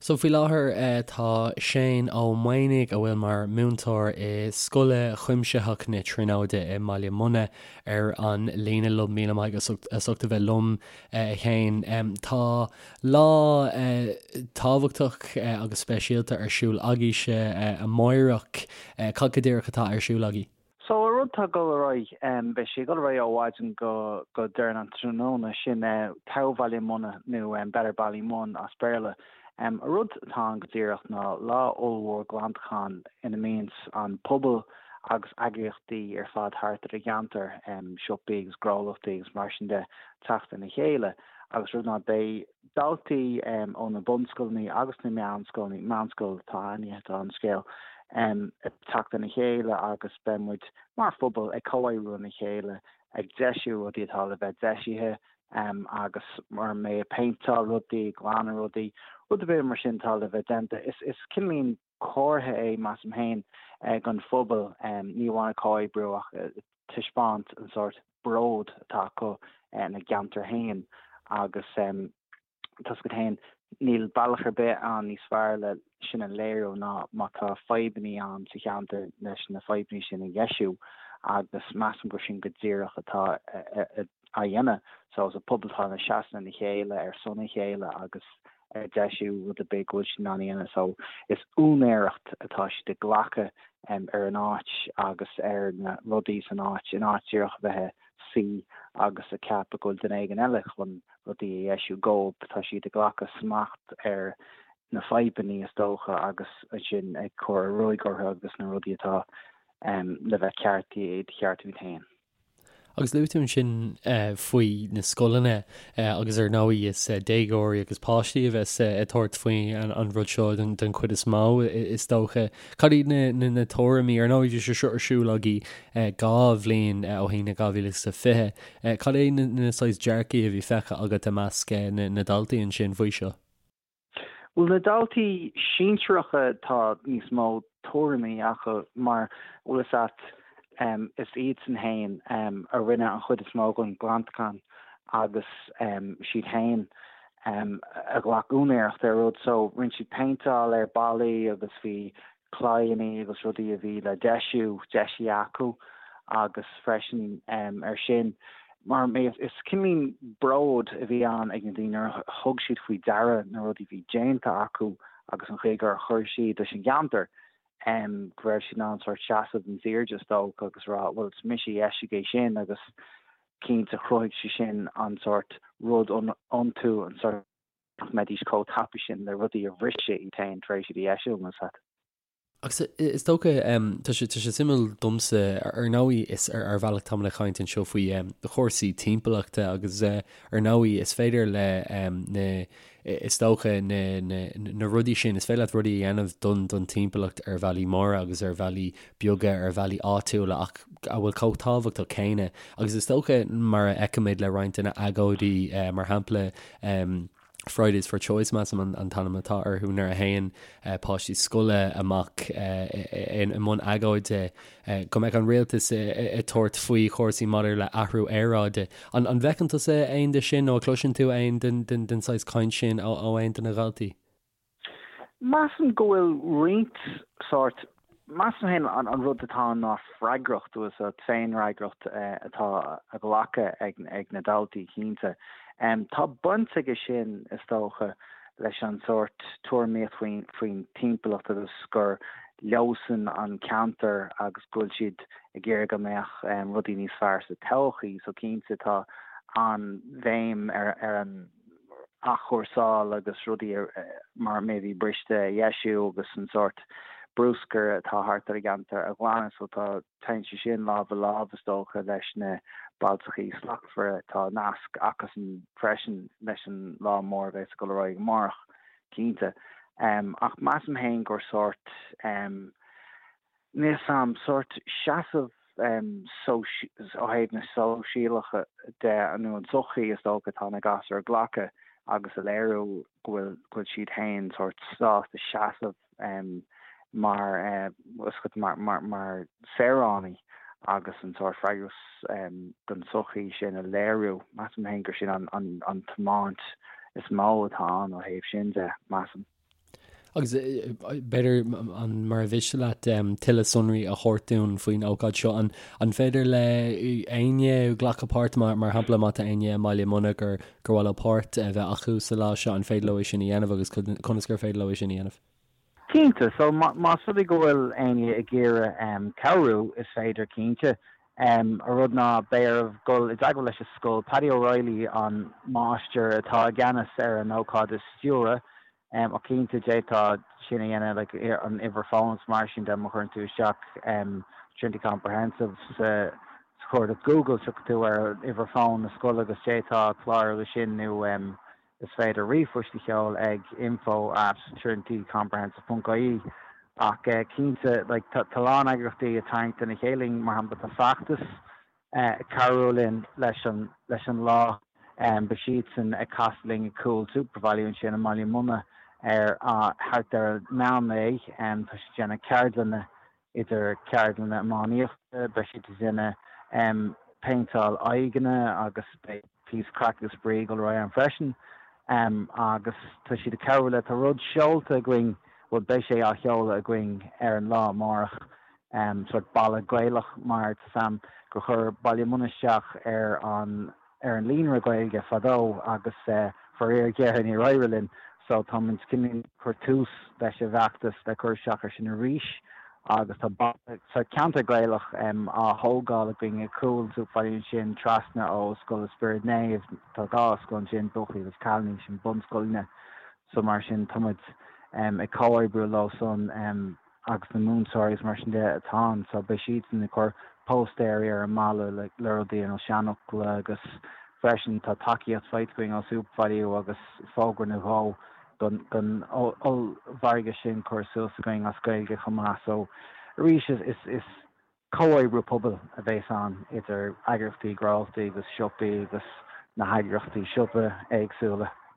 So faoi láthair tá Shane Ó Maonaigh, a bhfuil mar múinteoir i Scoil Chuimsitheach na Tríonóide i mBaile Munna, ar an líne liom. Míle maith agat as ucht a bheith liom, a Shéain. Tá lá tábhachtach agus speisialta ar siúl agaibhse amáireach. Cad go díreach atá ar siúl agaibh? So, an rud atá ag dul ar aghaidh, beidh sé ag dul ar aghaidh ó mhaidin go go deireanach an tráthnóna, sin Togha Bhaile Munna nó Better Ballymun as Béarla. An rud atá ann go díreach ná lá ollmhór glantacháin ina mbíonns an pobal agus eagraíochtaí ar fad thart ar an gceantar, siopaí agus gnólachtaí agus mar sin de, teacht lena chéile agus rud ná beidh daltaí ó na bunscoileanna agus na meánscoileanna, meánscoil atá ainmnithe atá an scéal, ag teacht lena chéile agus beidh muid mar phobal ag comhoibriú lena chéile ag deisiú rudaí atá le bheith deisithe agus mar mé ag péinteáil rudaí, ag glanadh rudaí, rud ar bith mar sin atá le bheith déanta. Is cineáilín comhartha é, measaim féin, don phobal, ní amháin ag comhoibriú ach ag taispeáint an sórt bród atá acu ina gceantar féin agus tá 'fhios agat féin, níl bealach ar bith ann níos fearr le sin a léiriú ná má tá fadhbannaí ann sa cheantar leis na fadhbannaí sin a dheisiú agus measaim gur sin go díreach atá á dhéanamh. So is an pobal atá ina seasamh lena chéile ar son a chéile agus ag deisiú rud ar bith go bhfuil siad in ann a dhéanamh. So is úinéireacht atá siad ag glacadh ar an áit agus ar na rudaí san áit, in áit díreach a bheith ag suí agus ag ceapadh go bhfuil duine éigin eile chun rudaí a dheisiú dóibh. Tá siad ag glacadh smacht ar na fadhbannaí is dócha agus ansin ag cur ruaig orthu agus na rudaí atá le bheith ceartaithe iad a cheartú iad féin. Agus luaigh tú ansin faoi na scoileanna agus ar ndóigh is déagóirí agus páistí a bheas ag tabhairt faoi an rud seo den chuid is mó is dócha. Cad iad na tuairimí, ar ndóigh bhí sé seo ar siúl agaibh 2 bhliain ó shin i 2020, cad é na saghas dearcaí a bhí feicthe agat i measc na ndaltaí ansin faoi seo? Bhuel, na daltaí sinsearacha tá níos mó tuairimí acu mar, bhfuil fhios a't, is iadsan fhéin a rinne an chuid is mó den ghlantachán agus siad fhéin a ghlac úinéireacht ar rud. So, rinne siad péinteáil ar ballaí agus bhí claíonnaí agus rudaí a bhí le deisiú, deisithe acu agus freisin ar sin, mar is cineáilín bród a bhí ann ag na daoine nuair a thug siad faoi deara na rudaí a bhí déanta acu agus an chaoi gur chuir siad leis an gceantar, go raibh siad in ann sórt seasamh níos airde is dócha agus rá bhuel is mise a dheisigh é sin agus cinnte chruthaigh sé sin an sórt rud iontu, an sórt. nach mbeidís chomh tapaidh sin le rudaí a bhriseadh iad féin tar éis iad a dheisiú, más ea. Agus is dócha, tá sé, tá sé suimiúil domsa, ar ndóigh is ar ar bhealach táimid ag caint anseo faoi chúrsaí timpeallachta agus ar ndóigh is féidir le na, is dócha na, na, na rudaí sin, is féidir leat rudaí a dhéanamh don, don timpeallacht ar bhealaí móra agus ar bhealaí beaga, ar bhealaí áitiúla ach a bhfuil chomh tábhachtach céanna. Agus is dócha mar a fheicimid le roinnt de na agóidí, mar shampla, Fridays for Choice, measaim an t-ainm atá orthu, nuair a théann páistí scoile amach i mbun agóide go mbeadh an rialtas ag tabhairt faoi chúrsaí maidir le athrú aeráide. An bhfeiceann tusa aon de sin nó an gcloiseann tú aon den saghas caint sin ó aon de na dhaltaí? Measaim go bhfuil roinnt sórt, measaim féin an rud atá ann ná freagracht, bhfuil fhios a't, féinfhreagracht atá á glacadh ag na daltaí cinnte. Tá baint aige sin is dócha leis an sórt tuairimíocht faoin timpeallacht agus gur leosan an ceantar agus go bhfuil siad ag iarraidh go mbeadh rudaí níos fearr sa todhchaí so cinnte tá an-bhéim ar an athchúrsáil agus rudaí mar a bhí briste a dheisiú agus an sórt bruscair atá thart ar an gceantar a ghlanadh so tá téann sé sin lámh i lámh is dócha leis na Bailte Slachtmhara. Tá nasc acusan freisin leis an lá mór a bheas ag dul ar aghaidh amárach cinnte. Ach measaim féin gur sórt Níl 'fhios a'm, sórt seasamh ó thaobh na sóisialacha de nó an tsochaí is dócha atá na gasúir a ghlacadh agus a léiriú go bhfuil go bhfuil siad féin sórt sásta seasamh mar mar mar saoránaigh agus an sórt freagras don tsochaí sin a léiriú. Measaim féin gur sin an an an tiomáint is mó atá ann ó thaobh sin de, measaim. Agus b'fhéidir, an mura mhiste leat tuilleadh sonraí a thabhairt dúinn faoin ócáid seo, an an féidir le éinne glacadh páirt, mar shampla má tá éinne i mBaile Munna gur gur mhaith leo páirt a bheith acu sa lá seo, an féidir leo é sin a dhéanamh agus conas gur féidir leo é sin a dhéanamh? Cinnte, so más rud é go bhfuil éinne ag iarraidh cabhrú, is féidir cinnte. An rud ná beidh oraibh dul i dteagmháil leis an scoil. Paddy O'Reilly an máistir atá i gceannas ar an ócáid a stiúradh. Ach cinnte d'fhéadfá sin a dhéanamh like an uimhir fóin is mar sin de má chuireann tú isteach Trinity Comprehensive sa chuardach Google tiocfaidh tú ar uimhir fóin na scoile agus d'fhéadfá clárú leis sin nó is féidir ríomhphost a sheoladh ag info at trinitycomprehensive ponc ie ach cinnte like tá a lán eagraíochtaí ag tarraingt lena chéile mar shampla tá Feachtas ag cabhrú linn leis an leis an lá. Beidh siadsan ag casadh linn ag cúl SuperValu ansin i mBaile Munna ar thart ar an meán lae. Tá siad ag déanamh ceardlanna, idir ceardlanna iománaíochta, beidh siad ag déanamh péinteáil aghaidheanna agus beidh píosa craic agus spraoi ag dul ar aghaidh ann freisin. Agus tá siad ag cabhrú le, tá rud seolta againn, bhuel beidh sé á sheoladh againn ar an lá amárach, sórt balla Gaelach mar tá 's a'm gur chuir Baile Munna isteach ar an ar an líonra Gaeilge fadó agus faraor géar níor éirigh linn so táimid cineál ag cur tús leis an bhfeachtas le cur isteach ar sin arís agus tá balla sórt ceantar Gaelach á thógáil againn ag cúl SuperValu ansin trasna ó Scoil an Spioraid Naomh tá dhá scoil ansin buachaillí agus cailíní sin bunscoileanna so mar sin táimid ag comhoibriú leo san. agus na múinteoirí agus mar sin de atá ann so beidh siadsan ag cur póstaeirí ar an mballa le rudaí ar nós seanfhocla agus freisin tá tacaíocht faighte againn ó SuperValu agus fógra nó dhó don don ollmhargadh sin curtha suas againn as Gaeilge chomh maith so arís is is is comhoibriú pobail a bheas ann idir eagraíochtaí gnólachtaí agus siopaí agus na heagraíochtaí siopa éagsúla.